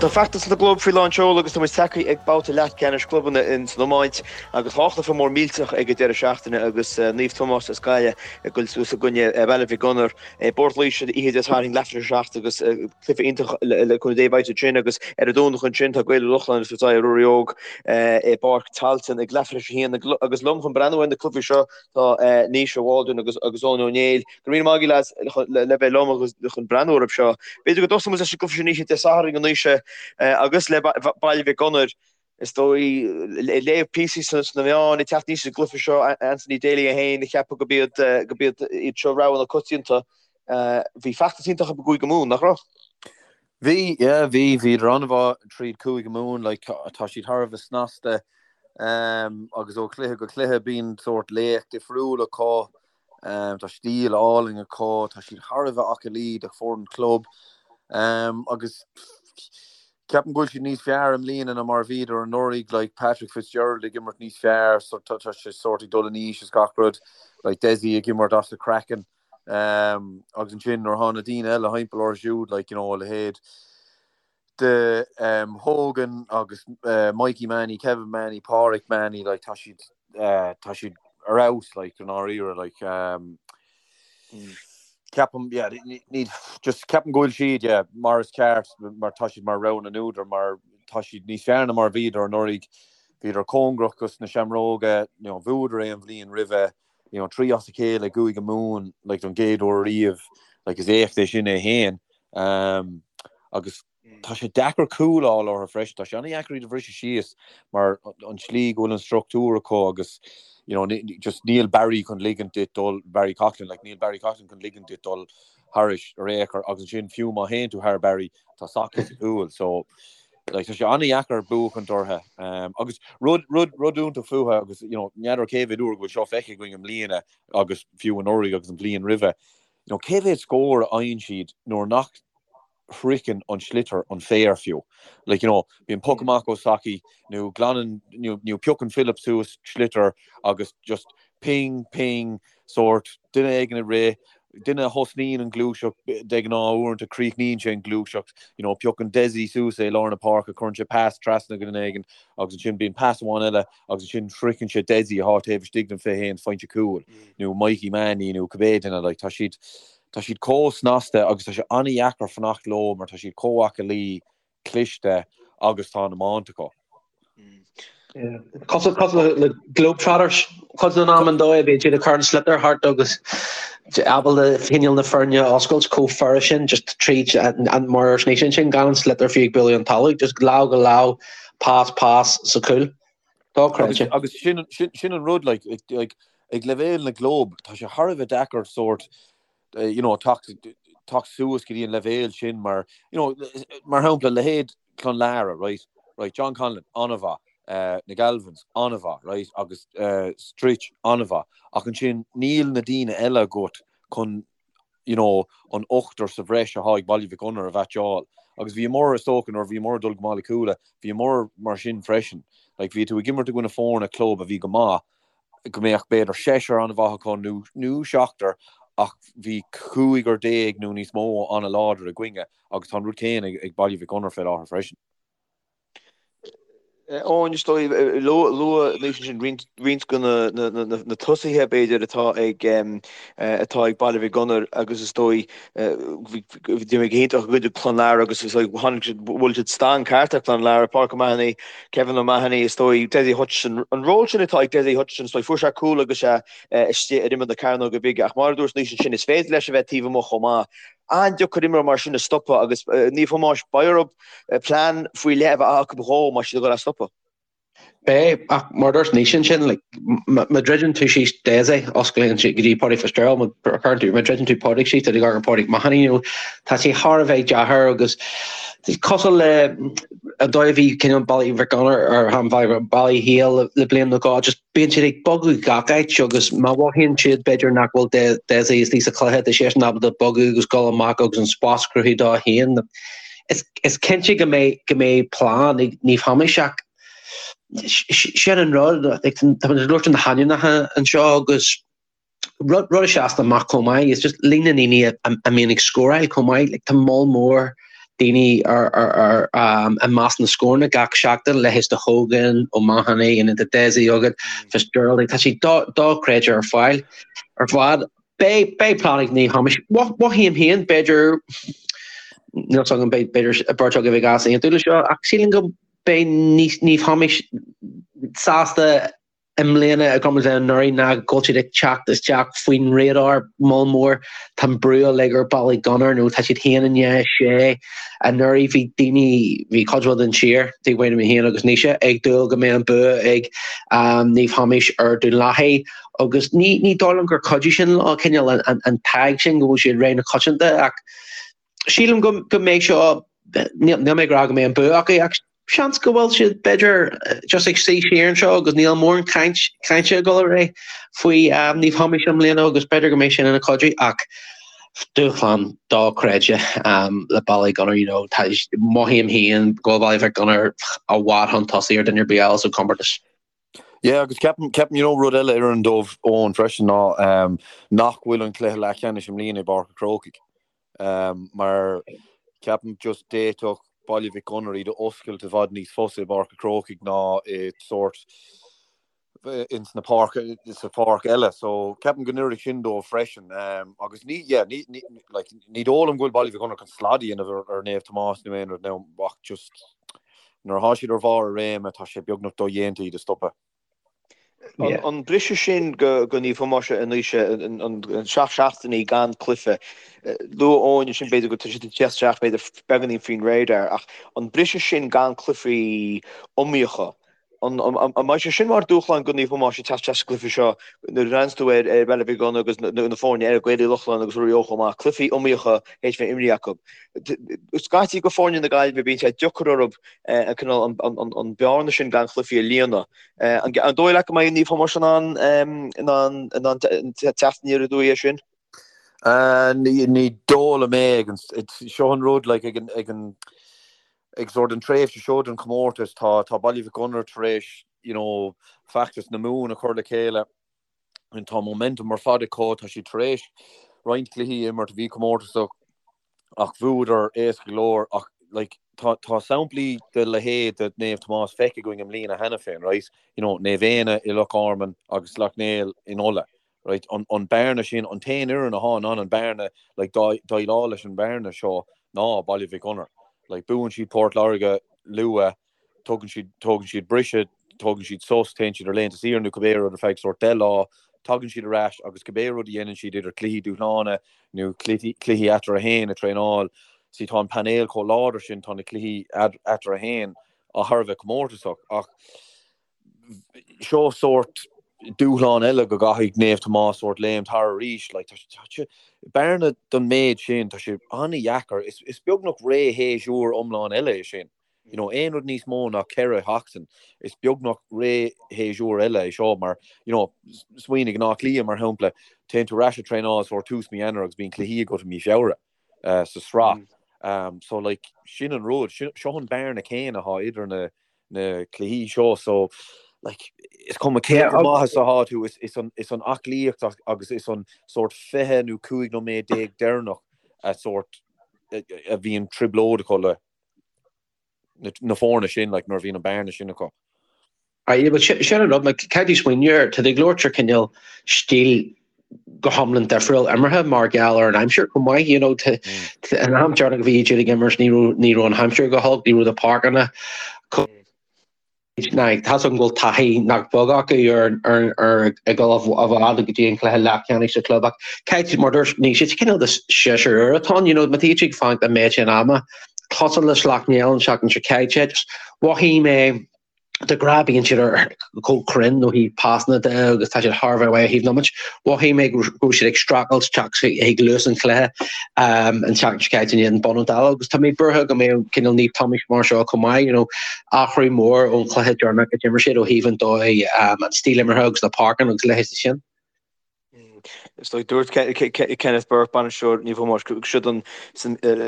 Bhuel, tá feachtas na gclub faoi lán seoil agus tá muid tagtha ag babhta leathcheannais clubanna ins an iomáint agus tá cluiche mór millteach ag an deireadh seachtaine agus Naomh Tomás as Gaillimh ag dul suas i gcoinne Baile Mhic Gonair i bPort Laoise oíche Dé Sathairn leathuair tar éis 7 agus cluiche iontach le cúnamh Dé beidh ansin agus ar an Domhnach ansin tá Gaeil Uí Lochlainn ag tabhairt aghaidh ar Ruairí Óg i bPáirc Tailteann ag leathuair tar éis 1 agus liom chun breathnú ar na cluichí seo tá Naoise Waldron agus Eoin Ó Néill. Go raibh míle maith agaibh lads le bheith liom agus chun breathnú orthu seo. B'fhéidir go dtosóidh muid leis an gcluiche sin oíche Dé Sathairn, a Naoise, agus le Baile Mhic Gonair. Is dóigh, ag léamh píosaí sna meáin ag teacht aníos sa gcluiche seo, Anthony Daly é féin ag ceapadh gurb iad gurb iad iad seo rogha na coitianta. Bhí feachtas iontach acu i gCúige Mumhan, nach raibh? Bhí, yeah, bhí, bhíodar an-mhaith tríd Cúige Mumhan, like, tá siad thar a bheith snasta, agus ó chluiche go cluiche bíonn sórt laoch difriúil acu. Tá stíl álainn acu, tá siad thar a bheith aclaí do foireann club agus ceapaim go bhfuil siad níos fearr i mbliana ná mar a bhíodar anuraidh, like Patrick Fitzgerald ag imirt níos fearr, so tá sé sórt ag dul in aois is gach rud, like Dessie ag imirt as a chraiceann agus ansin nuair atá na daoine eile thimpeall orthu siúd, like you know a leithéid de Hogan agus Mikey Mahony, Kevin Mahony, Pádraic Mahony, like tá siad tá siad ar fheabhas like i ndáiríre like ceapaim yeah ní just ceapaim go bhfuil siad yeah mar is ceart mar tá siad mar rogha na n-údar mar tá siad níos fearr ná mar a bhíodar anuraidh bhíodar cóngarach dos na Seamróga you know bhuadar é an bhliain roimhe you know 3 as a chéile i gCúige Mumhan like don gcéad uair riamh like is éacht é sin é féin um, agus tá sé deacair cúl a fháil orthu freisin tá sé an-deacair iad a bhriseadh síos mar an tslí go bhfuil an struchtúr acu agus you know, just níl Barry chun ligint duit dul Barry Coughlan like, níl Barry Coughlan chun ligint duit dul thairis ar aon chor agus ansin fiú má théann tú thar Barry tá Socky sa chúl so Like, tá sé an-dheacair buachaint orthu. Um, agus rud, rud, rud iontach fúthu agus, you know, n'fheadar cé mhéad uair go bhfuil seo feicthe againn i mbliana agus fiú anuraidh agus an bhliain roimhe. You know, cé mhéad scór a fhaigheann siad nuair nach shroicheann an sliotar an féar fiú. Like, you know, bíonn poc amach ó Socky nó glanann, nó, nó piocann Philip suas sliotar agus just ping, ping, sórt, duine éigin ag rith, duine a thosnaíonn an ghluaiseacht, de ghnáth uaireanta críochnaíonn sé an ghluaiseacht, you know, piocann Dessie suas é i lár na páirce, cuireann sé pas trasna go duine éigin agus ansin bíonn pas amháin eile agus ansin sroicheann sé Dessie atá taobh istigh den 21 pointe cúil nó Mikey Mahony nó cibé duine, like, tá siad, tá siad chomh snasta agus tá sé an-dheacair fanacht leo mar tá siad chomh aclaí cliste agus tá an iomáint acu. Cosúil le Globetrotters cuid den am an dóigh a bhíonn siad ag cur an sliotar thart agus ábalta cineál na foirne a oscailt chomh furast sin just tríd an mar ar sin sin gan an sliotar fiú ag bualadh an talamh just lámh go lámh pas pas sa chúl. Dochreidte. Agus sin sin an rud like like ag leibhéal na gclub tá sé thar a bheith deacair sórt you know, teacht teacht suas go dtí an leibhéal sin mar, you know, mar shampla, leithéid Clonlara, right, right, John Conlon, an-mhaith, uh, na Galvins, an-mhaith, right, agus uh, Stritch, an-mhaith, ach ansin níl na daoine eile agat chun, you know, an ochtar sa bhreis atá ag Baile Mhic Gonair a mheaitseáil. Agus bhíomar, is dócha, nuair a bhíomar ag dul go Baile Cúla, bhíomar mar sin freisin. Like, bhí tú ag imirt i gcoinne foirne club a bhí go maith, go mbeadh b'fhéidir seisear an-mhaith acu nó nó seachtar ach bhí cúigear déag nó níos mó an-láidir againne agus tá an rud céanna ag Baile Mhic Gonair fé láthair freisin. Eoin, is dóigh, luaigh Naoise ansin roinnt roinnt de na tosaithe b'fhéidir atá ag atá ag Baile Mhic Gonair agus is dóigh bhí go hiontach i gcoinne Clonlara agus is dóigh tháinig siad bhuail siad stang ceart ar Clonlara, Pádraic O'Mahony, Kevin O'Mahony, is dóigh, Dessie Hutchinson, an ról sin atá ag Dessie Hutchinson, is dóigh, fuair sé cúl agus é istigh ar imeall na cearnóige bige ach mar a dúirt Naoise ansin, is féidir leis a bheith taobh amuigh chomh maith. An-deacair imreoir mar sin a stopadh agus Naomh Thomáis, beidh orthu plean faoi leith a bheith acu dhó má tá siad ag dul é a stopadh. Beidh, ach mar a dúirt Naoise ansin, like, má dhruideann tú síos Dessie, osclaíonn sé go dtí Pádraig Fitzgerald, má chuireann tú, má dhruideann tú Pádraig síos, tá tú ag dul ar Pádraig Mahony, you know, tá sé thar a bheith deacair agus cosúil le an dóigh a bhí cineál Baile Mhic Gonair ar an Baile Héil le bliain nó dhó, just bíonn siad ag bogadh gach áit agus má mhothaíonn siad b'fhéidir nach bhfuil Dessie istigh sa chluiche, tá seisean ábalta bogadh agus dul amach agus an spás a chruthú dó féin. Is cinnte go mbeidh go mbeidh plean ag Naomh Thomáis ach sin an rud, tá muid ag labhairt na hainmneacha anseo agus rud rud a sheasann amach chomh maith is just líon na ndaoine a mbíonn ag scóráil chomh maith, like tá moll mór daoine ar ar ar i measc na scóranna gach seachtain, leithéid de Hogan, O'Mahony, an de Dessie agat, Fitzgerald, tá sé dochreidte ar fáil ar fad. Beidh beidh plean ag Naomh Thomáis. Mothaím féin, b'fhéidir, níl 's agam, b'fhéidir beirt agaibh ag easaontú le seo, ach sílim go mbeidh Naomh Thomáis sásta i mbliana i gcomparáid le anuraidh ná go bhfuil siad ag teacht isteach faoin radar moll mór. Tá an brú uilig ar Ballygunner nó tá siad féin i ndiaidh 6. Anuraidh bhí daoine, bhí cuid mhaith den tír, taobh amuigh de mé féin agus Naoise, ag dúil go mbeadh an bua ag Naomh Thomáis ar Dún Lathaí agus ní ní dóigh liom gur chuidigh sin leo, cineál an an tag sin go bhfuil siad rogha na coitianta ach sílim go go mbeidh seo, níl mé ag rá go mbeidh an bua acu ach seans go bhfuil siad b'fhéidir just ag suí siar anseo agus níl mórán caint cainte ag dul ar aghaidh faoi Naomh Thomáis i mbliana agus b'fhéidir go mbeidh sin ina chuidiú ach dúshlán dochreidte le Ballygunner you know tá mothaím féin go bhfuil Baile Mhic Gonair i bhfad chun tosaigh ar duine ar bith eile sa chomórtas. Yeah agus ceapaim ceapaim you know rud eile a oireann dóibh Eoin freisin ná nach bhfuil an cluiche leathcheannais i mbliana i bPáirc an Chrócaigh. Mar ceapaim just d'fhéadfadh Baile Mhic Gonair iad a oscailt i bhfad níos fusa i bPáirc an Chrócaigh ná i sórt ins na páirc sa pháirc eile. So ceapaim go n-oirfidh sin dóibh freisin. Agus ní yeah ní ní like ní dóigh liom go bhfuil Baile Mhic Gonair chun slad a dhéanamh ar ar Naomh Tomás nó aon rud now ach just nuair atá siad ar bharr a réime tá sé beagnach dodhéanta iad a stopadh. An briseadh sin go Naomh Thomáis anois, an 7 seachtainí gan cluiche, luaigh Eoin ansin b'fhéidir go tá siad ag teacht isteach b'fhéidir beagáinín faoin radar ach an briseadh sin gan cluichí iomaíocha, an mbeidh sé sin mar dúshlán go Naomh Thomáis ag teacht isteach sa gcluiche seo nuair a bhreathnaíonns tú ar Bhaile Mhic Gonair agus na foirne eile, Gaeil Uí Lochlainn agus Ruairí Ó chomh maith, cluichí iomaíocha théis bheith imrithe acu. Scaití go foirne na Gaillimhe bíonn sé deacair orthu an cineál an bearna sin gan chluichí a líonadh. An dóigh leat go mbeidh Naomh Thomáis in ann in ann in ann teacht aniar aduaidh air sin? Ní dóigh liom é ag an seo an rud like ag an ag an ag sort an tréimhse seo den chomórtas tá tá Baile Mhic Gonair tar éis you know feachtas na Mumhan a chur le chéile Tá momentum ar fad acu, tá siad tar éis roinnt cluichí a imirt a bhí comórtasach ach bhuadar éasca go leor ach like tá tá samplaí de leithéid de Naomh Tomás feicthe againn i mbliana cheana féin, right? You know, Naomh Éanna i Loch Garman agus Sleacht Néill in Ulaidh, right? An an bearna sin, an t-aon fhoireann atá in ann an bearna, like déileáil leis an bhearna seo ná Baile Mhic Gonair. Like buann siad Port Láirge luath, tugann siad, tógann siad briseadh, tógann siad sos, téann siad ar laethanta saoire nó cibé rud ar feadh sórt 10 lá, tagann siad ar ais agus cibé rud a dhéanann siad idir cluichí dúshlána nó cluichí eatarthu féin a traenáil, see tá an painéal chomh láidir sin, tá na cluichí eatarthu féin thar a bheith comórtasach ach seo sórt dúshlán eile go gcaithfidh Naomh Tomás sórt léimt thar arís, like tá sé, bearna don méid sin, tá sé an-dheacair, is beagnach ré shéasúr iomlán eile é sin. You know, aon rud níos mó ná 4 sheachtain, is beagnach ré shéasúr eile é seo mar, you know, smaoinigh in Áth Cliath mar shampla, téann tú ar ais ag traenáil sórt tús mí Eanáir agus bíonn cluichí agat i mí Feabhra sa sraith. So like, sin an rud, seo an bearna céanna atá idir na, na cluichí seo so like, is cuma cé chomh maith is atá tú, is, is an, is an aclaíocht agus is an sórt 20 nó 15 nóiméad deireanach a sórt a bhíonn trioblóid acu le. na foirne sin, like, nuair a bhíonn an bearna sin acu. Aye, but sin an rud, like, caithfidh tú smaoineamh air, tá tú ag labhairt ar cineál stíl go hiomlán difriúil imeartha mar gheall ar an aimsir chomh maith, you know, an am deireanach a bhí siad ag imirt ní raibh ní raibh an aimsir go holc, ní raibh na páirceanna chomh Now, tá's agam go bhfuil taithí nach beag acu ar ar ag dul i bhfad go dtí an cluiche leathcheannais sa chlub ach caithfidh mar dúirt Naoise, is cineál de séasúr úr atá ann, you know, má tá siad ag fanacht an méid sin ama, cosúil le Sleacht Néill an tseachtain seo caite, just mhothaigh mé de ghnáth bíonn siad ar chomh cruinn ó thaobh pasanna de agus tá siad thar a bheith maith ó thaobh iomáint. Mhothaigh mé go raibh siad ag streachailt teacht chuig luas an chluiche an tseachtain seo caite in éadan Bun an Dála agus tá mé buartha go mbeidh cineál Naomh Tomás mar seo chomh maith, you know, athrú mór ón chluiche deireanach a d'imir siad ó thaobh an dóigh, an stíl imeartha agus na páirceanna agus a leithéid de sin. Is dóigh, dúirt Kenneth Burke, bainisteoir Naomh Thomáis, go siod an,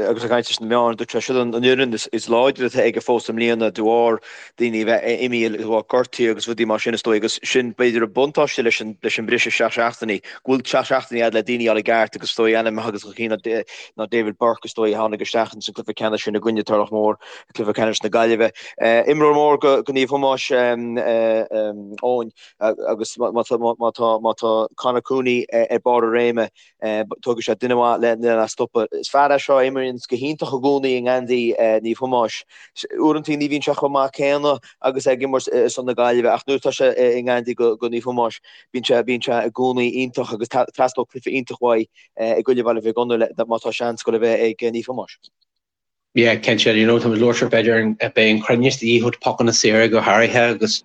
agus ag caint leis na meáin, dúirt sé, siod an fhoireann is láidre atá aige fós i mbliana de bharr daoine a bheith imithe de bharr gortuithe agus rudaí mar sin is dóigh agus sin b'fhéidir an buntáiste leis an leis an briseadh 7 seachtainí, go bhfuil 7 seachtainí agat le daoine a fháil i gceart agus is dóigh ainm agus an cinn ná David Burke is dóigh a tháinig isteach ins an cluiche ceannais sin i gcoinne Turlough Mór, cluiche ceannais na Gaillimhe. Imreoir mór go Naomh Thomáis, Eoin. Agus má tá Conor Cooney ar barr a réime, tógfaidh sé duine maith lena stopadh. Is fear é seo a imríonn go hiontach i gcónaí i ngeansaí Naomh Thomáis. Uaireanta ní bhíonn sé chomh maith céanna agus é ag imirt ar son na Gaillimhe ach nuair atá sé i ngeansaí go Naomh Thomáis, bíonn sé bíonn sé i gcónaí iontach agus teastóidh cluiche iontach uaidh i gcoinne Bhaile Mhic Gonair má tá seans go le bheith ag Naomh Thomáis. Yeah, cinnte, you know, tá muid ag labhairt ar b'fhéidir beidh an cruinneas de dhíth ó pocanna saora go háirithe agus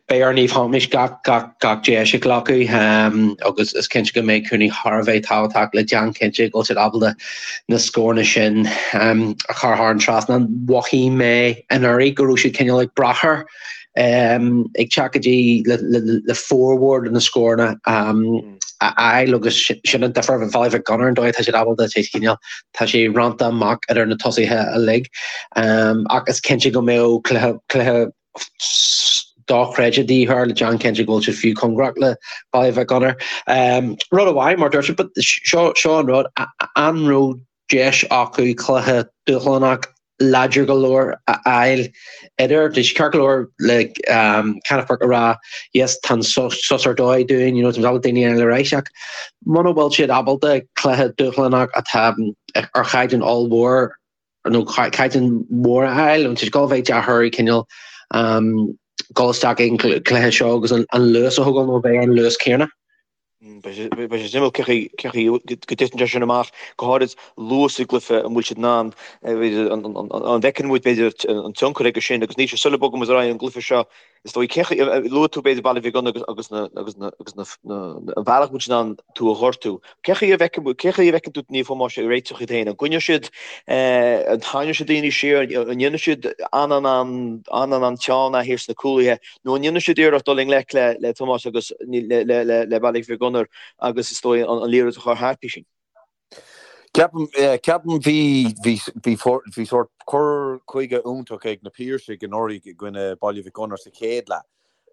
beidh ar Naomh Thomáis gach, gach, gach deis a ghlacadh um, agus is cinnte go mbeidh Cooney thar a bheith tábhachtach le déanamh cinnte go bhfuil siad ábalta na scóranna sin um, a chur thar an trasnán. Mhothaigh mé anuraidh go raibh siad cineál ag brath air ag teacht go dtí le formhór de na scóranna a fháil agus sin an difear Bhaile Mhic Gonair an dóigh atá siad ábalta sé cineál tá sé roinnte amach idir na tosaithe uilig ach is cinnte go mbeadh cluiche cluiche dochreidte de dhíth air le déanamh cinnte go bhfuil siad fiú cóngarach le Baile Mhic Gonair. Rud amháin mar dúirt siad seo seo an rud an raibh deis acu cluiche dúshlánach láidir go leor a fháil idir. Tá sé ceart go leor le Kenneth Burke a rá yes tá an sos ar dóigh dúinn, you know, tá ábalta daoine eile ar ais ach muna bhfuil siad ábalta cluiche dúshlánach atá ar chaighdeán ollmhór nó caighdeán mór a fháil, tá sé ag gabháil a bheith deacair cineál dul isteach ag an cluiche seo agus an luas a thógáil nó bheith an luas céanna. Beidh sé suimiúil cén chaoi go dtiteann sé sin amach, go háirid luas i gcluiche, an bhfuil siad in ann, an bhfeiceann muid b'fhéidir an tionchar aige sin agus Naoise sula bogfaidh muid ar aghaidh ón gcluiche seo, is dóigh, cén chaoi, luaigh tú b'fhéidir Baile Mhic Gonair agus na, agus na, agus na, an bhealach bhfuil siad in ann tú a ghortú. Cén chaoi a bhfeiceann, cén chaoi a bhfeiceann tú Naomh Thomáis ag réiteach iad féin? An gcoinneoidh siad, an tarraingeoidh siad daoine siar, an ndéanfaidh siad an-an-an, an-an-an teann thiar sna cúlaithe? Nó an ndéanfaidh siad iarracht dul i ngleic le Tomás agus le Baile Mhic Gonair agus is dóigh an liathróid a chur thart, Písín? Ceapaim, ceapaim bhí, bhí, bhí, bhí sórt cur chuige iontach ag na Piarsaigh anuraidh i gcoinne Baile Mhic Gonair sa chéad leath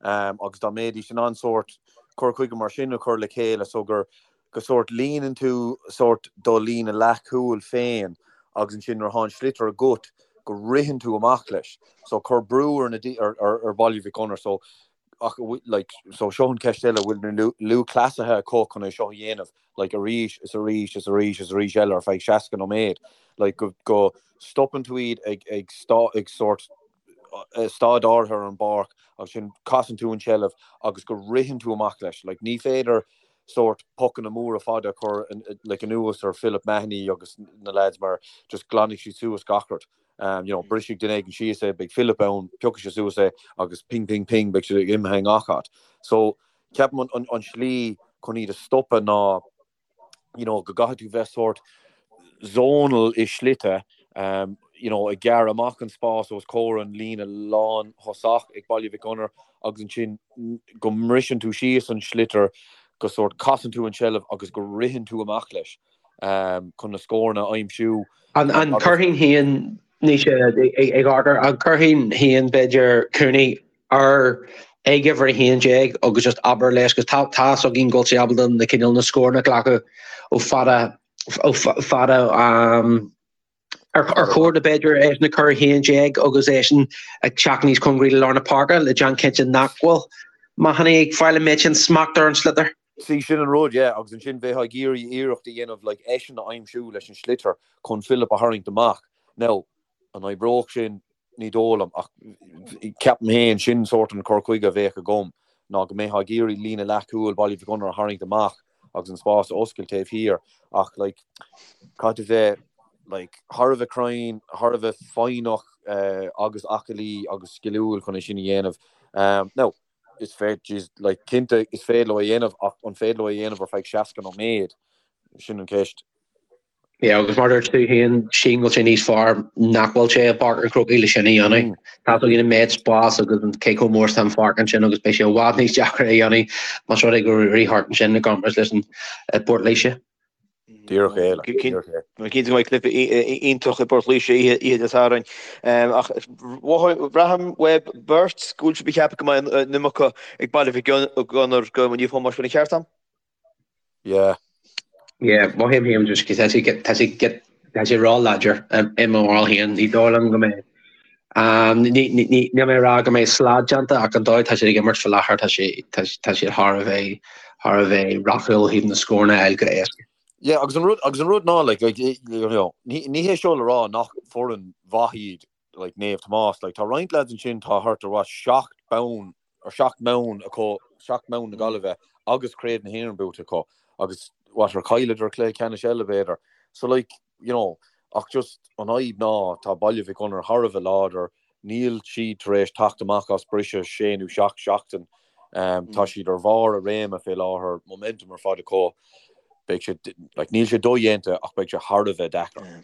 agus dá mbeidís in ann sórt cur chuige mar sin a chur le chéile so gur, go sórt líonann tú sórt do líne leathchúil féin agus ansin nuair atá an sliotar agat go ritheann tú amach leis. So cur brú ar na ar ar Bhaile Mhic Gonair so ach like so seo an ceist eile bhfuil na lúthchleasaithe acu chun é seo a dhéanamh like arís is arís is arís is arís eile ar feadh 60 nóiméad like go go stopann tú iad ag ag stá ag sórt staid áirithe ar an bpáirc agus ansin casann tú an tseilbh agus go ritheann tú amach leis. Like ní féidir sórt pocanna móra fada a chur like anuas ar Philip Mahony agus na lads mar just glanfaidh siad suas gach rud. Um, you know, brisfidh duine éigin síos é, beidh Philip ann, piocfaidh sé suas é agus ping ping ping beidh siad ag imithe i ngach áit. So ceapaim an, an, an slí chun iad a stopadh ná you know, go gcaithfidh tú bheith sórt zonal i slite, um, you know, ag gearradh amach an spás os comhair an líne lán thosach ag Baile Mhic Gonair agus ansin go mbriseann tú síos an sliotar, go sórt casann tú an tseilbh agus go ritheann tú amach leis um, chun na scóranna a aimsiú. An, an gcuirfinn féin Naoise ag amharc an gcuirfinn féin b'fhéidir Cooney ar ag uimhir 11 agus just abair leis agus tá tá fhios againn go bhfuil sé ábalta na cineál na scóranna a ghlacadh ó fada ó fada um, ar ar chóir do b'fhéidir eisean a chur 11 agus eisean ag teacht níos cóngaraí le lár na páirce le déanamh cinnte nach bhfuil Mahony ag fáil an méid sin smacht ar an sliotar. See, sin an rud, yeah, agus ansin bheifeá ag iarraidh iarracht a dhéanamh like eisean a aimsiú leis an sliotar chun Philip a tharraingt amach. Now, an oibreodh sin? Ní dóigh liom, ach ceapaim féin, sin sórt an cur chuige a bheadh agam, ná go mbeifeá ag iarraidh líne leathchúil Bhaile Mhic Gonair a tharraingt amach agus an spás a oscailt taobh thiar, ach like caithfidh tú bheith like thar a bheith cruinn, thar a bheith foighneach agus aclaí agus sciliúil chun é sin a dhéanamh. Now, is féidir, jeez, like cinnte is féidir leo é a dhéanamh ach an féidir leo é a dhéanamh ar feadh 60 nóiméad? Sin an cheist. Yeah, agus mar dúirt tú féin, sílim go bhfuil sé níos fearr nach bhfuil sé i bPáirc an Chrócaigh le sin a dhéanamh. Tá a fhios againn an méid spás agus an cé chomh mór is atá an pháirc ansin agus beidh sé i bhfad níos deacra a dhéanamh más rud é go rith thart ansin i gcomparáid leis an i bPort Laoise. Díreach é, like, díreach é. Cinnte go mbeidh cluiche iontach i bPort Laoise oíche Dé Sathairn. Ach braithim uaibh beirt go bhfuil sibh ag ceapadh go mbeidh an iomarca ag Baile Mhic Gonair do Naomh Tomás, bhfuil an ceart agam? Yeah. Yeah, mothaím féin just tá sé tá sé tá sé ró-láidir i mo bharúil féin. Ní dóigh liom go mbeidh ní ní níl mé ag rá go mbeidh slad déanta ach an dóigh tá siad ag imirt faoi láthair tá sé tá tá siad thar a bheith thar a bheith rathúil ó thaobh na scóranna a fháil go héasca. Yeah, agus an rud agus an rud ná like like you know ní ní hé seo le rá nach foireann mhaith iad like Naomh Tomás like tá roinnt lads ansin tá thart ar what 7 bonn or 7 mbonn acu, 7 mbonn na Gaillimhe agus Craobh na hÉireann buaite acu agus what ar chailleadar cluiche ceannais eile b'fhéidir. So like, you know, ach just an fhadhb ná tá Baile Mhic Gonair thar a bheith láidir, níl siad tar éis teacht amach as briseadh sé nó seacht seachtain, tá siad ar bharr a réime fé láthair, momentum ar fad acu, beidh sé, like, níl sé dodhéanta ach beidh sé thar a bheith deacair.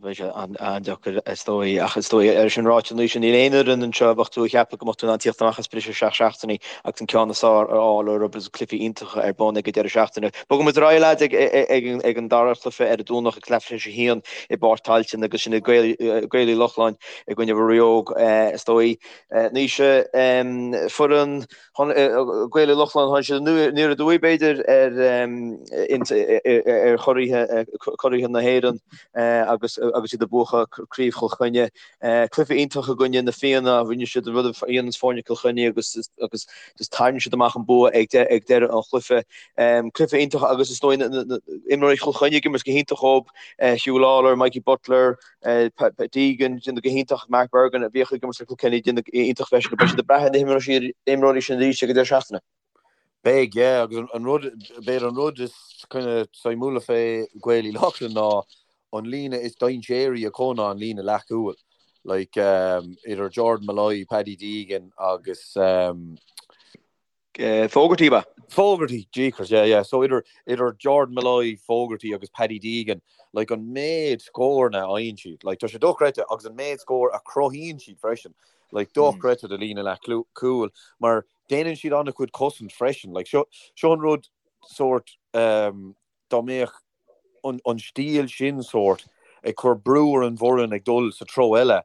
Beidh sé an-deacair is dóigh, ach is dóigh é sin ráite anois, níl aon fhoireann anseo a bheadh tú ag ceapadh go mbeadh tú in ann tíocht amach as briseadh 7 seachtainí agus an ceann is fearr a fháil orthu agus cluichí iontacha ar bun ag an deireadh seachtaine. Bogfaidh muid ar aghaidh lads ag an dara cluiche ar an Domhnach ag leath tar éis a haon i bPáirc Tailteann agus sin Gaeil Uí Lochlainn i gcoinne Mhuire Óg is dóigh. Naoise, foireann Gaeil Uí Lochlainn, tháinig siad aniar aduaidh, b'fhéidir, ar churaidh na hÉireann agus agus iad ag buachan Craobh Chill Chainnigh. Cluiche iontach i gcoinne na Fianna, rinne siad an rud a dhéananns foirne Chill Chainnigh agus agus just tharraing siad amach an bua ag deireadh an chluiche. Cluiche iontach agus is dóigh na imreoirí Chill Chainnigh ag imirt go hiontach dhóibh, Huw Lawlor, Mikey Butler, Deegan, déanamh go hiontach, Mark Bergin a bhíodh ag imirt le Kilkenny, déanamh go hiontach freisin. Beidh siad ag brath ar na himreoirí sin arís ag an deireadh seachtaine. Beidh, yeah, agus an rud, b'fhéidir an rud is kind of suimiúla fé Gaeil Uí Lochlainn ná an líne is dainséaraí acu ná an líne leathchúil. Like, idir Jordan Molloy, Paddy Deegan agus, Fogarty, ab ea? Fogarty, jeekers, yeah, yeah. So idir, idir Jordan Molloy, Fogarty agus Paddy Deegan, like an méid scóranna a fhaigheann siad, like tá sé dochreidte agus an méid scór a chruthaíonn siad freisin, like dochreidte do líne leathchúil mar déanann siad an-chuid cosaint freisin. Like seo, seo an rud sórt um, dá mbeadh an stíl sin sórt ag cur brú ar an bhfoireann ag dul sa treo eile,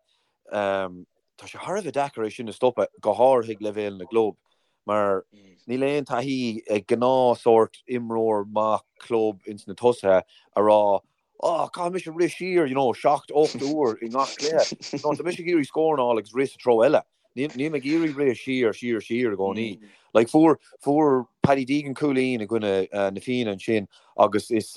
tá sé thar a bheith deacair é sin a stopadh, go háirithe ag leibhéal na gclub, mar níl aon taithí ag gnáth sórt imreoir maith club ins na tosaithe a rá oh, caithfidh mise rith siar, you know, 7, 8 uair i ngach cluiche. No, tá mise ag iarraidh scór a fháil agus rith sa treo eile. Níl mé ag iarraidh rith siar, siar, siar i gcónaí. Like, fuair, fuair Paddy Deegan cúilín i gcoinne na Fianna ansin agus is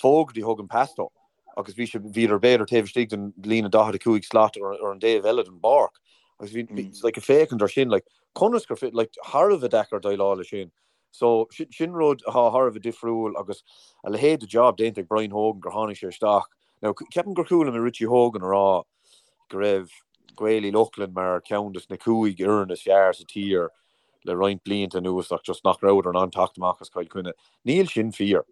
Fogarty a thug an pas dó agus bhí sé, bhíodar b'fhéidir taobh istigh den líne 45 slat ar, ar an dtaobh eile den bpáirc. Agus bhí, bhí, like, ag féachaint ar sin, like, conas gur, like, thar a bheith deacair déileáil leis sin. So, sin rud atá thar a bheith difriúil agus a leithéid de job déanta ag Brian Hogan gur tháinig sé isteach. Now, ceapaim gur chuala mé Richie Hogan a rá go raibh Gaeil Uí Lochlainn mar cheann des na cúig fhoireann is fearr sa tír le roinnt blianta anuas ach just nach rabhadar in ann teacht amach as Cill Chainnigh. Níl sin fíor.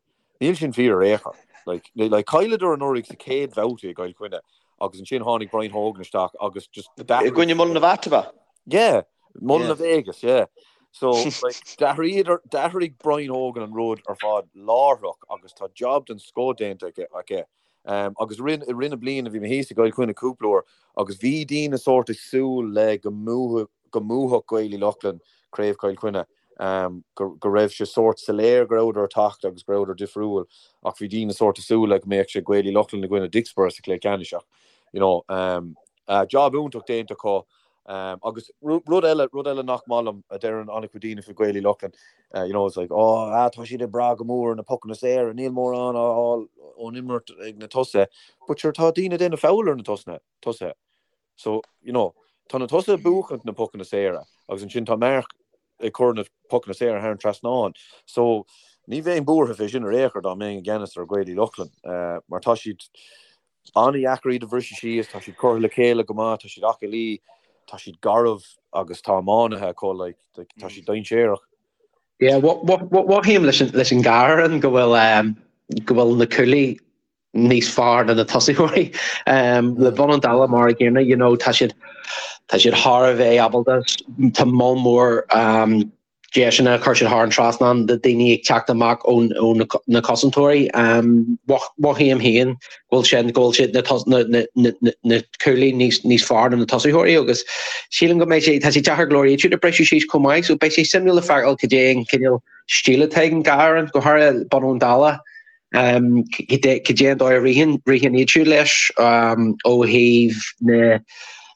Níl sin fíor ar aon chor. Like, like chailleadar anuraidh sa chéad bhabhta i gCill Chainnigh agus ansin tháinig Brian Hogan isteach agus just I gcoinne Mullinavat, ab ea? Yeah, Mullinavat, yeah. So, like, d'athraíodar, d'athraigh Brian Hogan an rud ar fad láithreach agus tá job den scoth déanta aige. aige. Um, agus i rith, i rith na bliana bhí mé thíos i gCill Chainnigh cúpla uair agus bhí daoine sórt ag súil le go mbuafadh, go mbuafadh Gaeil Uí Lochlainn Craobh Chill Chainnigh. go raibh sé sórt soiléir go rabhadar ag teacht agus go rabhadar difriúil ach bhí daoine sórt ag súil le go mbeadh sé Gaeil Uí Lochlainn i gcoinne Dicksboro sa chluiche ceannais ach you know job iontach déanta acu agus rud eile rud eile nach maith liom a deireann an-chuid daoine faoi Gaeil Uí Lochlainn you know it's like oh ah tá siad ag brath go mór ar na pocanna saora níl mórán á fháil ón imirt ag na tosaithe but sure tá daoine ag déanamh foul ar na tosaithe So, you know, tá na tosaithe ag buachaint na pocanna saora agus ansin tá Mark ag cur na pocanna saora thar an trasnán. So, ní bheinn buartha fé sin ar aon chor dá mbeinn i gceannas ar Gaeil Uí Lochlainn mar tá siad an-dheacair iad a bhriseadh síos, tá siad curtha le chéile go maith, tá siad aclaí, tá siad garbh agus tá iománaithe acu, like, tá siad dainséarach. Yeah, mothaím leis an gcarn go bhfuil go bhfuil na cúlaí. níos fearr ná na tosaitheoirí. Le Bun an Dála mar a gcéanna, you know, tá siad tá siad thar a bheith ábalta, tá moll mór deiseanna a chuir siad thar an trasnán de daoine ag teacht amach ó na cosantóirí. Mothaím féin go bhfuil sin, go bhfuil siad na na na na cúlaí níos níos fearr ná na tosaitheoirí agus sílim go mbeidh sé, tá sé deacair go leor iad siúd a briseadh síos chomh maith, so beidh sé suimiúil le feiceáil cad é an cineál stíl atá ag an dhá fhoireann, go háirithe Bun an Dála. Cad é an dóigh a ritheann ritheann iad siúd leis ó thaobh na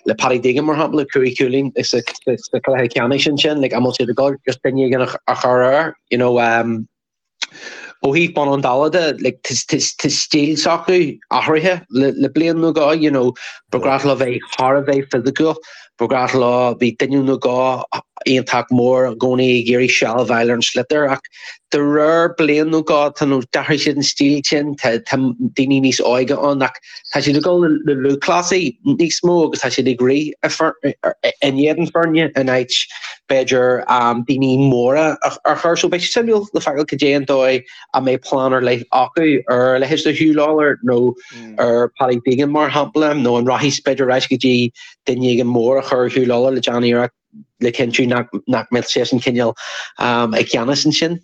le Paddy Deegan mar shampla, 5 chúilín sa chluiche ceannais ansin, like an bhfuil siad ag dul just duine éigin a chur air, you know, ó thaobh Bun an Dála de, like tá stíl s'acu athraithe le le bliain nó dhó, you know, ba ghnách leo bheith thar a bheith fisiciúil, ba ghnách leo bhí duine nó dhó iontach mór i gcónaí ag iarraidh seilbh a fháil ar an sliotar ach de réir bliain nó dhó tá nó d'athraigh siad an stíl sin, tá tá daoine níos óige ann ach tá siad ag dul le lúthchleasaí níos mó agus tá siad ag rith in éadan foirne in áit b'fhéidir daoine móra a chur. So beidh sé suimiúil le feiceáil cad é an dóigh a mbeidh plean ar leith acu ar a leithéid de Huw Lawlor nó ar Paddy Deegan mar shampla nó an rachaidh b'fhéidir ar ais go dtí duine éigin mór a chur ar Huw Lawlor le déanamh iarracht le cinntiú nach mbeadh seisean cineál i gceannas ansin.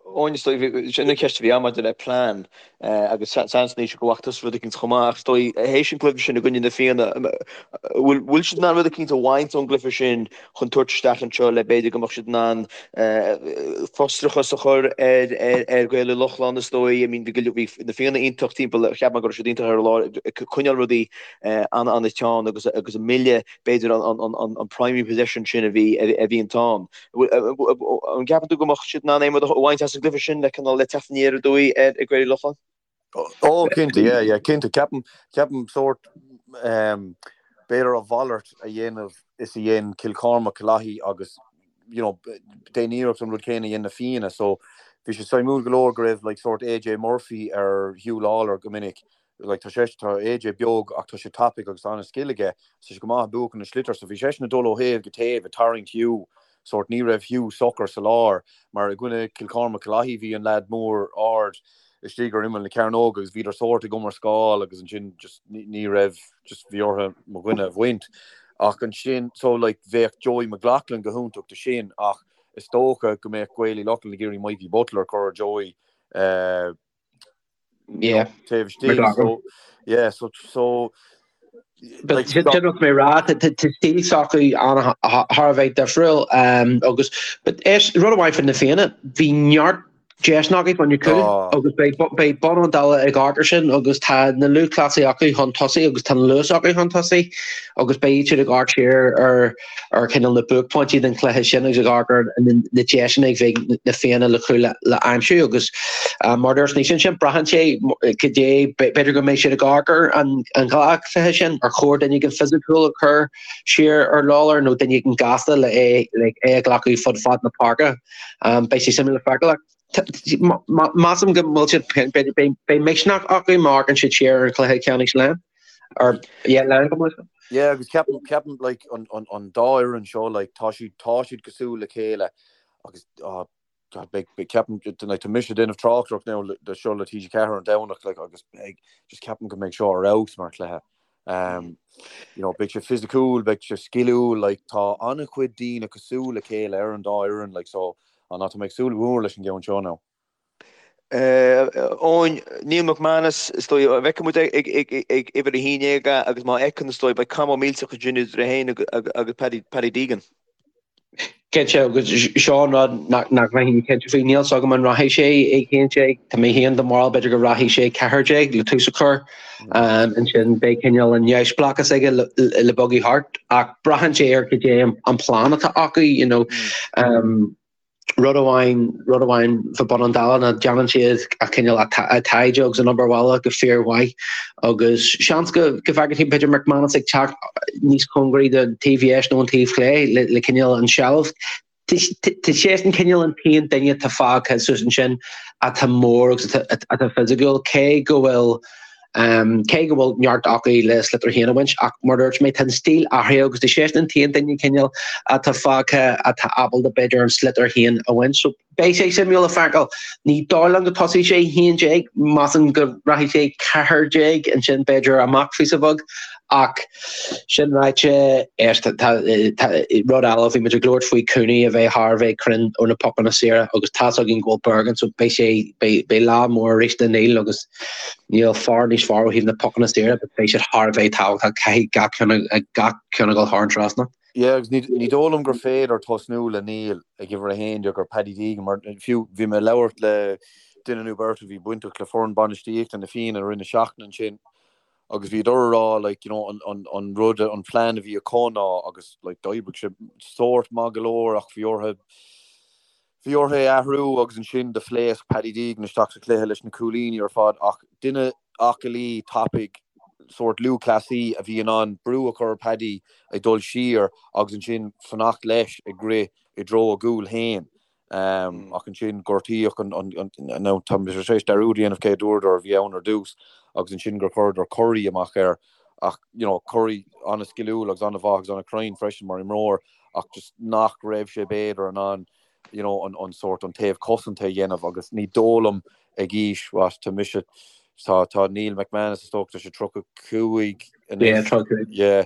Eoin, is dóigh, sin an cheist a bhí ann maidir le plean agus seans anois go bhfaca tusa rud eicínt chomh maith ach is dóigh théis an cluiche sin i gcoinne na Fianna, bhfuil bhfuil siad in ann rud eicínt a bhaint ón gcluiche sin chun tabhairt isteach anseo le b'fhéidir go mbeadh siad in ann frustrachas a chur ar ar Ghaeil Uí Lochlainn is dóigh, I mean bhí bhí na Fianna iontach timpeall, cheap mé go raibh siad iontach ar an lá ag coinneáil rudaí an-an-teann agus agus ag milleadh b'fhéidir an primary possession sin a bhí a bhí ann. An gceapann tú go mbeadh siad in ann aon rud a bhaint as an gcluiche sin le cineál le teacht aniar aduaidh ar Ghaeil Uí Lochlainn? Ó cinnte, yeah, yeah, cinnte. Ceapaim, ceapaim sórt, b'fhéidir a mhalairt a dhéanamh is a dhein Cill Chormaic, Cill Lathaí agus, you know, déan iarracht an rud céanna a dhein na Fianna. So, bhí sé suimiúil go leor go raibh like sórt AJ Murphy ar Huw Lawlor go minic Like tá sé, tá AJ beag ach tá sé tapaidh agus tá an-scil aige, tá sé go maith ag buachan na sliotar so bhí seisean ag dul ó thaobh go taobh ag tarraingt Hugh, sórt ní raibh Hugh socair sa lár mar i gcoinne Cill Chormaic Cill Lathaí bhí an leaid mór ard istigh ar imeall na cearnóga agus bhíodar sórt ag iomrascáil agus ansin just ní raibh, just bhí orthu mo dhuine a bhaint ach ansin so like bheadh Joey McLaughlin go hiontach do sin ach is dócha go mbeadh Gaeil Uí Lochlainn ag iarraidh Mikey Butler a chur ar Joey eh, Yeah. Taobh istigh, so, yeah, so, so, like, Sin rud mé rá, tá stíl s'acu thar a bheith difriúil agus but is rud amháin faoi na Fianna, bhí neart deiseanna acu fá choinne cúl agus beidh Bun an Dála ag amharc air sin agus tá na lúthchleasaithe acu chun tosaigh agus tá an luas acu chun tosaigh agus beidh siad ag amharc siar ar ar cineál na buaicphointí den chluiche sin agus ag amharc ar na deiseanna a bheidh na Fianna le cúil le aimsiú agus mar a dúirt Naoise ansin, braitheann sé cad é, b'fhéidir go mbeidh siad ag amharc ar an dhá chluiche sin, ar chóir duine éigin fisiciúil a chur siar ar Lawlor nó duine éigin gasta le é le é a ghlacadh fud fad na páirce. Beidh sé suimiúil le feiceáil ach measaim go bhfuil siad, beidh misneach acu má amharcann siad siar ar an chluiche ceannais Laighean. Or yeah, Laighean go maith. Yeah, agus ceapaim, ceapaim like an, an, an dá fhoireann seo like tá siad, tá siad cosúil le chéile agus oh, God, beidh, beidh, ceapaim, like, tá mise ag déanamh tráchtaireacht now le, le seo le TG4 an Domhnach like agus beidh, just ceapaim go mbeidh seo ar fheabhas mar chluiche. Um, you know, beidh sé fisiciúil, beidh sé sciliúil, like tá an-chuid daoine cosúil le chéile ar an dá fhoireann like so, an tá mé ag súil go mór leis an gceann seo now. Eoin, Neil McManus, is dóigh, an bhfeicfidh muid ag uimhir 11 é agus má fheiceann, is dóigh, beidh cath mór millteach ansin idir é féin agus Paddy Deegan. Cinnte, agus seo an rud nach mbeinn cinnte faoi, níl 's agam an rachaidh sé ag 11, tá mé féin den bharúil b'fhéidir go rachaidh sé 14 le tús a chur, ansin beidh cineál an neamhspleáchas aige le bogadh thart, ach braitheann sé ar cad é an plean atá acu, you know. Rud amháin, rud amháin fá Bun an Dála ná déanann siad a cineál a taighde agus an obair bhaile go fíormhaith agus seans go go bhfeicfidh tú b'fhéidir McManus ag teacht níos cóngaraí don taobh dheis nó an taobh chlé le le cineál an seilbh. Tá seisean cineál an t-aon duine atá fágtha suas ansin atá mór agus atá fisiciúil cé go bhfuil. Cé go bhfuil neart acu le sliotar féin a bhaint ach mar a dúirt mé tá an stíl athraithe agus tá seisean an t-aon duine cineál atá fágtha atá ábalta b'fhéidir an sliotar féin a bhaint. So beidh sé suimiúil le feiceáil. Ní dóigh liom go tosóidh sé 11, measaim go rachaidh sé 14 ansin b'fhéidir amach phíosa beag ach sin ráite éist tá rud eile bhí muid ag labhairt faoi Cooney a bheith thar a bheith cruinn ó na pocanna saora agus tá's againn go bhfuil Bergin so beidh sé beidh lá mór arís do Neil agus Níl fear níos fearr ó thaobh na pocanna saora but beidh siad thar a bheith tábhachtach, caithfidh gach ceann gach ceann a dhul thar an trasnán. Yeah agus ní dóigh liom gur féidir tosnú le Neil ag uimhir 11 ar Paddy Deegan mar fiú bhí mé ag labhairt le duine nó beirt a bhí bainteach le foireann bainistíochta na Fianna i rith na seachtaine ansin agus bhíodar ag rá like you know an an an rud an plean a bhí acu ná agus like d'oibrigh sé sórt maith go leor ach bhí orthu Bhí orthu é a athrú agus ansin do phléasc Paddy Deegan isteach sa chluiche leis na cúilíní ar fad ach duine aclaí, tapaidh, sórt lúthchleasaí a bhí in ann brú a chur ar Paddy ag dul siar agus ansin fanacht leis ag rith i dtreo a gcúil féin. Ach ansin gortaíodh an, nó tá mé tar éis dearúd a dhéanamh cé a dúradar a bhí ann ar dtús agus ansin gur chuireadar Curry amach air ach you know Curry an-sciliúil agus an-mhaith agus an-chruinn freisin mar imreoir ach just nach raibh sé b'fhéidir in ann you know an an sórt an taobh cosanta a dhéanamh agus ní dóigh liom ag aois what tá mise tá tá Neil McManus is dócha tá sé 35 Yeah, 35. yeah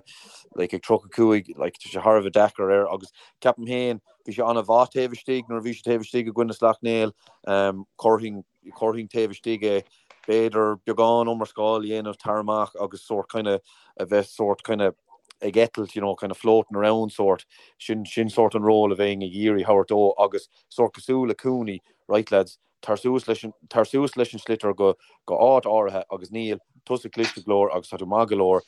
like ag 35 like tá sé thar a bheith deacair air agus ceapaim féin bhí sé an-mhaith taobh istigh nuair a bhí sé taobh istigh i gcoinne Sleacht Néill um chuirfinn Chuirfinn taobh istigh é, b'fhéidir beagán iomrascáil a dhéanamh tar amach agus sórt kind of a bheith sórt kind of ag eitilt, you know, kind of floating around sórt, sin, sin sórt an ról a bheinn ag iarraidh thabhairt dó agus sórt cosúil le Cooney, right lads, tar suas leis an, tar suas leis an sliotar go, go áit áirithe agus Neil, tusa cliste go leor agus tá tú maith go leor,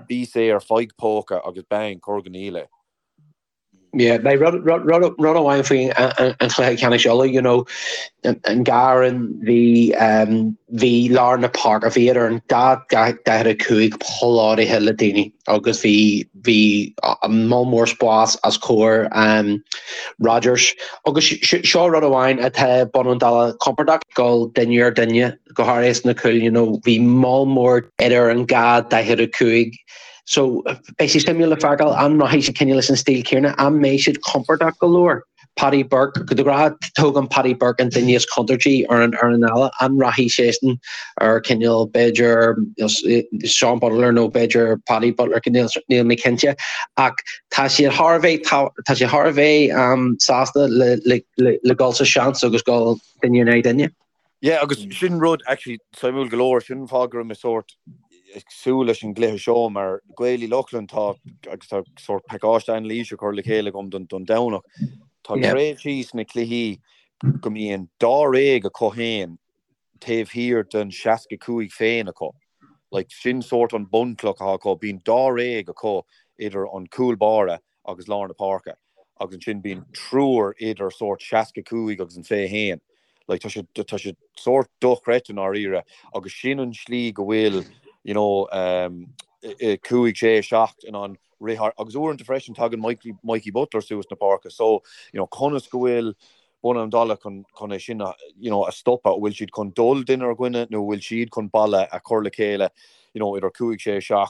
bí saor, faigh póca agus bang, cuir go Neil é. Yeah, beidh rud rud amháin faoi an chluiche ceannais Uladh, you know, an dá fhoireann bhí bhí lár na páirce, bhí idir an dá 45 plódaithe le daoine agus bhí bhí moll mór spás os comhair Rodgers agus seo rud amháin atá Bun an Dála compordach dul duine ar duine go háirithe sna cúil, you know, bhí moll mór idir an dá 45 So, beidh sé suimiúil le feiceáil an rachaidh siad cineál leis an stíl céanna, an mbeidh siad compordach go leor. Paddy Burke, de ghnáth tógann Paddy Burke an duine is contúirtí ar an fhoireann eile, an rachaidh seisean ar cineál b'fhéidir Seán Butler nó b'fhéidir Paddy Butler, níl mé cinnte. Ach tá siad thar a bheith, tá siad thar a bheith sásta le, le, le, le dul sa seans agus dul duine in aghaidh duine. Yeah, agus sin rud actually suimiúil go leor, sin an fáth go raibh mé sórt ag súil leis an gcluiche seo mar Gaeil Uí Lochlainn tá agus tá sórt pacáiste anailíse curtha le chéile agam don don Domhnach. Tá tréimhsí sna cluichí go mbíonn dáréag acu féin taobh thiar den 65 féin acu. Like sin sórt an bunchloch atá acu, bíonn dáréag acu idir an cúl báire agus lár na páirce agus ansin bíonn triúr idir sórt 65 agus an 21. Like tá sé tá sé sórt dochreidte i ndáiríre agus sin an slí go bhfuil you know um, 5, 6, 7 in ann rith thar agus uaireanta freisin tagann Mikey, Mikey Butler suas na páirce so you know conas go bhfuil Bun an Dála chun chun é sin a you know a stopadh, bhfuil siad chun dul duine ar dhuine nó bhfuil siad chun balla a chur le chéile you know idir 5, 6, 7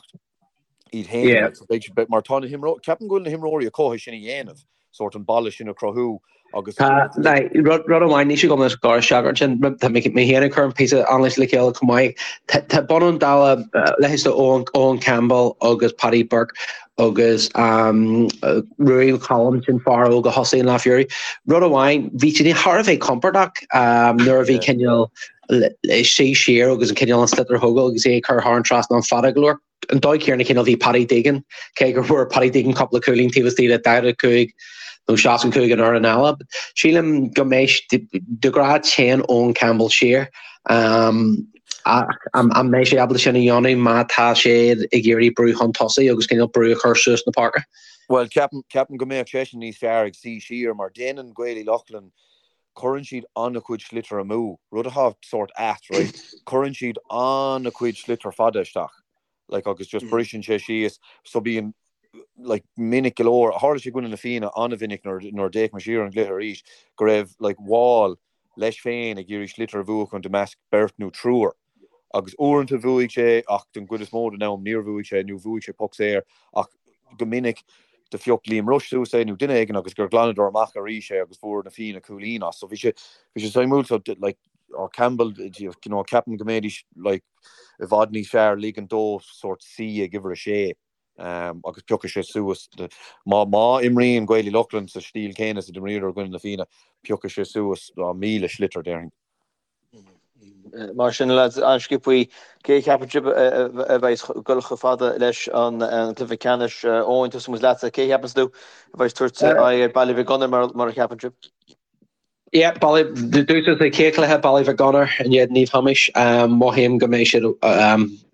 iad féin. Yeah. So beidh siad, mar tá na himreoirí, ceapaim go bhfuil na himreoirí acu é sin a dhéanamh, sórt an balla sin a chruthú agus. Tá, like, rud, rud amháin, níl sé agam is gar isteach ansin, tá mé mé féin ag cur an píosa anailíse le chéile chomh maith. Tá, tá Bun an Dála, leithéid de Owen, Owen Campbell agus Paddy Burke agus um, Ruairí McCollum, sin fear óg a thosaigh an lá Fury. Rud amháin, bhí siad thar a bheith compordach um, nuair a bhí Yeah. cineál suí siar agus an cineál an sliotar a thógáil agus é ag cur thar an trasnán fada go leor. An dóigh chéanna cineál bhí Paddy Deegan, cé gur fuair Paddy Deegan cúpla cúilín taobh istigh de 45 nó 65 an fhoireann eile. Sílim go mbeidh de ghnáth téann Eoin Campbell siar ach an mbeidh sé ábalta sin a dhéanamh má tá sé ag iarraidh brú chun tosaigh agus cineál brú a chur suas na páirce? Bhuel, ceapaim go mbeadh seisean níos fearr ag suí siar mar déanann Gaeil Uí Lochlainn Cuireann siad an-chuid sliotar amú, rud atá sórt ait, right? Cuireann siad an-chuid sliotar fada isteach, like, agus just briseann sé síos, so bíonn, like, minic go leor, tharla sé i gcoinne na Fianna an-mhinic nuair, nuair a d'fhéach mé siar ar an gcluiche arís, go raibh, like, Wall leis féin ag iarraidh sliotar a bhuachan i measc beirt nó triúr. Agus uaireanta bhuaigh sé ach den gcuid is mó den am níor bhuaigh sé nó bhuaigh sé poc saor ach go minic do phioc Liam Rushe suas é nó duine éigin agus gur ghlanadar amach arís é agus fuair na Fianna cúilín as. So bhí sé bhí sé suimiúil so like oh, Campbell you know, ceapaim go mbeidís like i bhfad níos fearr ligean dó sórt suí ag uimhir a sé um, agus piocfaidh sé suas má má imríonn Gaeil Uí Lochlainn sa stíl céanna is a d'imríodar i gcoinne na Fianna piocfaidh sé suas 1000 sliotar déarfainn. Mar sin, lads, an-sciobthaí, cé a cheapann sibh a bheidh ag dul chomh fada leis an gcluiche ceannais? Eoin, tosóidh muid leatsa. Cé a cheapann tú a bheidh ag tabhairt aghaidh ar Baile Mhic Gonair mar a cheapann sibh? Yeah, Baile, dúshlán sa chéad chluiche, Baile Mhic Gonair in éadan Naomh Thomáis. Mothaím go mbeidh siad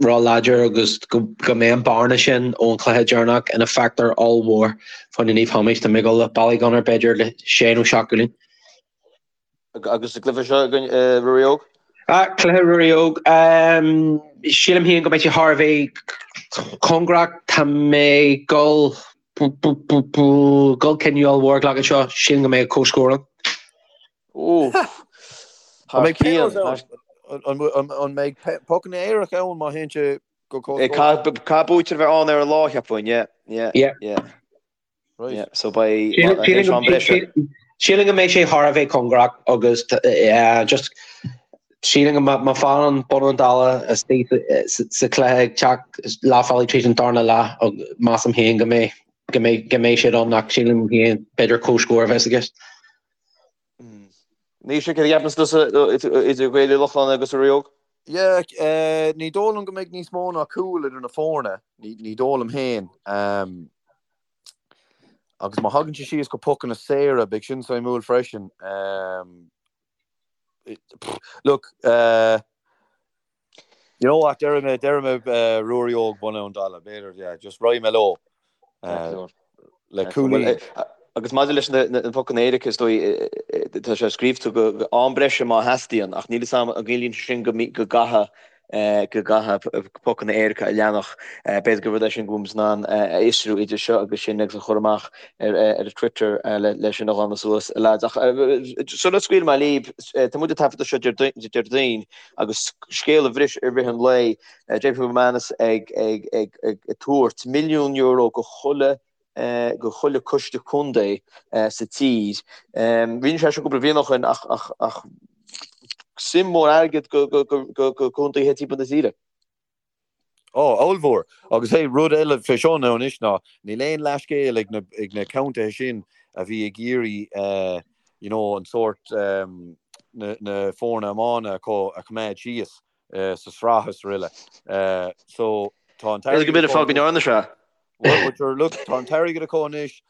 ró-láidir agus go mbeidh an bearna sin ón chluiche deireanach ina factor ollmhór fá choinne Naomh Thomáis. Tá mé ag dul le Baile Mhic Gonair b'fhéidir le sé nó seacht gcúilín. Agus sa gcluiche seo againn, Ruairí Óg? Cluiche Ruairí Óg. Sílim féin go mbeidh sé thar a bheith cóngarach. Tá mé ag dul dul cinneadh ollmhór a ghlacadh anseo. Sílim go mbeidh comhscór ann. An mbeidh pionós ann? An mbeidh pocanna éirice ann má théann sé go comhscór? Caithfidh buaiteoir a bheith ann ar an lá, cheapfainn. Yeah, yeah, yeah. Right. So beidh am breise. Sílim go mbeidh sé thar a bheith cóngarach agus just sílim go má fhanann Bun Abhann Dalla istigh sa chluiche ag teacht leath bealaigh tríd an darna leath measaim féin go mbeidh go mbeidh go mbeidh siad ann ach sílim féin b'fhéidir comhscór a bheas i gceist. Naoise, céard a cheapann tusa idir Gaeil Uí Lochlainn agus Ruairí Óg? Yeah, ní dóigh liom go mbeidh níos mó ná cúl idir na foirne, ní dóigh liom féin. Agus má thagann sé síos go pocanna saora, beidh sin suimiúil freisin. Look, you know what, déarfaidh mé, déarfaidh mé Ruairí Óg Bun Abhann Dalla, b'fhéidir, yeah, just raghaidh mé leo. Le cúilín. Agus maidir leis na pocanna éirice, is dóigh, tá sé scríobhta go am breise má theastaíonn, ach níl fhios agam an gciallaíonn sé sin go gcaithfidh go gcaithfidh pocanna éirice a leanfadh. B'fhéidir gur rud é sin go bhfuil muid in ann a fhiosrú idir seo agus sin agus a chur amach ar Twitter le sin a ghlanadh suas, a lads. Ach sula scaoilfidh mé libh, tá muid ag taifeadadh seo Déardaoin agus scéal a bhris i rith an lae, JP McManus ag tabhairt milliún euro go chuile go chuile coiste contae sa tír. Rinne sé seo cúpla bliain ó shin ach ach suim mór airgid go go contaetha timpeall na tíre. Ó, ollmhór. Agus hey, rud eile fé seo now anois ná níl aon leathscéal ag na ag na contaetha sin a bhí ag iarraidh you know an sórt na na foirne iomána acu a choimeád síos sa sraith is araile. So tá an t-airgead. Go mb'fhéidir fáth go ndearna sé. Well, sure, look, tá an t-airgead acu anois,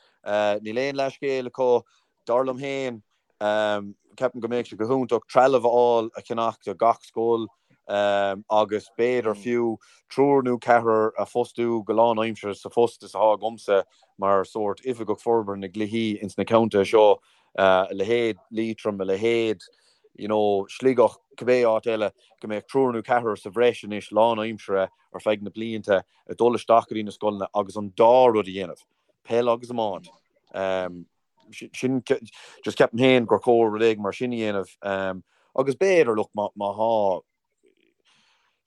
níl aon leathscéal acu, dar liom féin, ceapaim go mbeadh sé go hiontach trealamh a fháil a cheannach do gach scoil agus b'fhéidir fiú triúr nó ceathrar a phostú go lánaimseartha sa phost is atá agamsa mar sórt oifigeach forbartha na gcluichí ins na contaetha seo, a leithéid Liatroim, a leithéid you know, Sligeach, cibé áit eile, go mbeadh triúr nó ceathrar sa bhreis anois lánaimseartha ar feadh na blianta ag dul isteach go dtí na scoileanna agus an dá rud a dhéanamh, peil agus iomáint. Sin, just ceapaim féin gur chóir rud éigin mar sin a dhéanamh. Agus b'fhéidir, look, má tá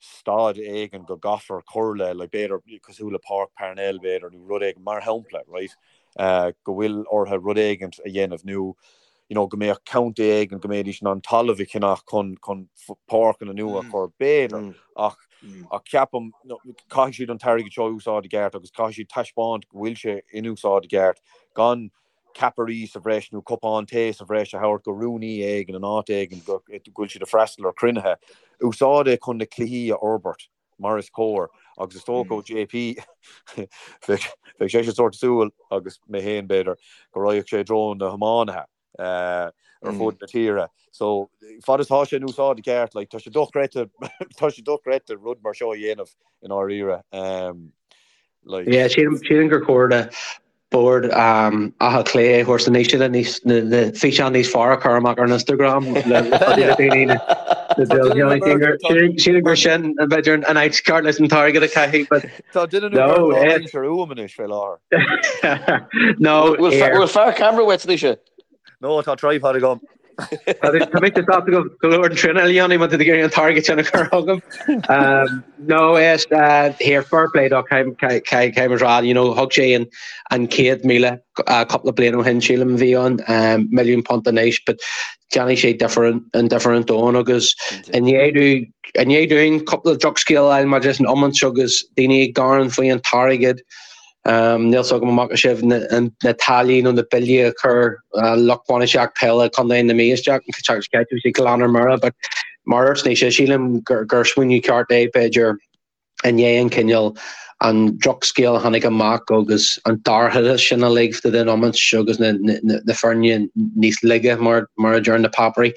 staid éigin go gcaithfear cur le, like, b'fhéidir cosúil le Páirc Parnell, b'fhéidir, nó rud éigin, mar shampla, right, go bhfuil orthu rud éigin a dhéanamh nó, you know, go mbeadh contae éigin go mbeidís in ann talamh a cheannach chun, chun páirceanna nua a chur, b'fhéidir, ach, ach ceapaim, caithfidh siad an t-airgead seo a úsáid i gceart agus caithfidh siad taispeáint go bhfuil sé in úsáid i gceart, gan ceapairí sa bhreis nó cupán tae sa bhreis a thabhairt go rúnaí éigin in áit éigin go bhfuil siad ag freastal ar chruinnithe. Úsáid é chun na cluichí a fhorbairt mar is cóir agus is dócha ó JP bheadh seisean sórt ag súil, agus mé féin b'fhéidir, go raghadh sé i dtreo na hiománaithe ar fud na tíre. So fad is tá sé in úsáid i gceart, like, tá sé dochreidte, tá sé dochreidte rud mar seo a dhéanamh i ndáiríre. Like. Yeah, sílim gur chóir do Bord Átha Cliath a thabhairt anois le níos na físeáin níos fearr a chur amach ar an Instagram le daoine na Sílim gur sin b'fhéidir an áit ceart leis an t-airgead a chaitheamh but Tá duine nó beirt á roinnt ar uaim anois fé láthair. No Bhfuil fear ceamara uait anois? No, tá tripod agam. Tá mé sásta go go leor den traenáil a dhéanamh má tá tú ag iarraidh an t-airgead sin a chur chugam. No is here fair play dó caithfidh mé a rá you know thug sé an an 100,000 cúpla bliain ó shin sílim a bhí ann £1 milliún anois but déanfaidh sé difear an difear an domhan agus i ndiaidh i ndiaidh dúinn cúpla drochscéal a fháil maidir leis an iomáint agus daoine ag gearán faoi an t-airgead Níl fhios agam an bhfaca sibh na táillí nó na billí a chuir lucht bainistíocht peile Chontae na Mí isteach, bhí sé glan ar mire, but mar a dúirt Naoise, sílim gur smaoineamh ceart é b'fhéidir i ndiaidh an cineál an drochscéal a tháinig amach agus an dorchadas sin uilig fá dtaobh den iomáint agus na foirne níos laige mar a deir na páipéirí,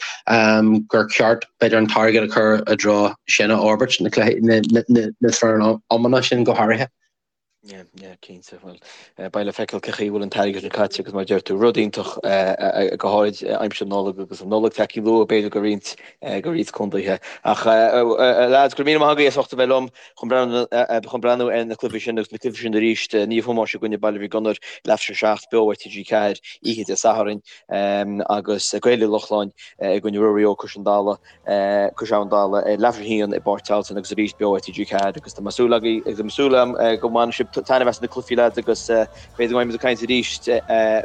gur ceart b'fhéidir an t-airgead a chur i dtreo sin a fhorbairt, na foirne iomána sin go háirithe. Yeah, yeah, cinnte. Bhuel, beidh le feiceáil cén chaoi a bhfuil an t-airgead sin caite agus mar a deir tú, rud iontach go háirid aimsir na Nollag agus an Nollaig tagtha luath b'fhéidir do roinnt, do roinnt contaetha. Ach lads, go raibh míle maith agaibh as ucht a bheith liom chun breathnú, chun breathnú ar na cluichí sin agus na cluichí sin arís, Naomh Thomáis i gcoinne Baile Mhic Gonair, leathuair tar éis a 7 beo ar TG4 oíche Dé Sathairn agus Gaeil Uí Lochlainn i gcoinne Ruairí Óg Cois an Dalaigh. Cois Abhann Dalla ar leathuair tar éis a haon i bPáirc Tailteann agus arís beo ar TG4 agus tá mé súil agaibh agus tá mé súil agam go mbainfidh sibh taitneamh as na cluichí lads agus b'fhéidir go mbeidh muid ag caint arís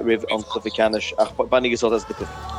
roimh an cluiche ceannais ach bainigí sult as na cluichí.